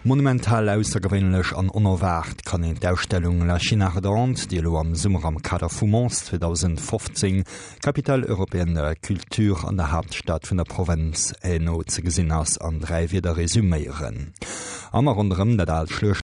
Monumental, aussergewéinlech an onerwaart kann een d'Ausstellung La Chine ardente, déi elo am Summer am Kader vu Mons 2015, Capitale européenne de la culture an der Haaptstad vun der Provënz Hainaut ze gesinn ass, an 3 Wierder resuméieren. Am a ronderëm dat aalt Schluecht.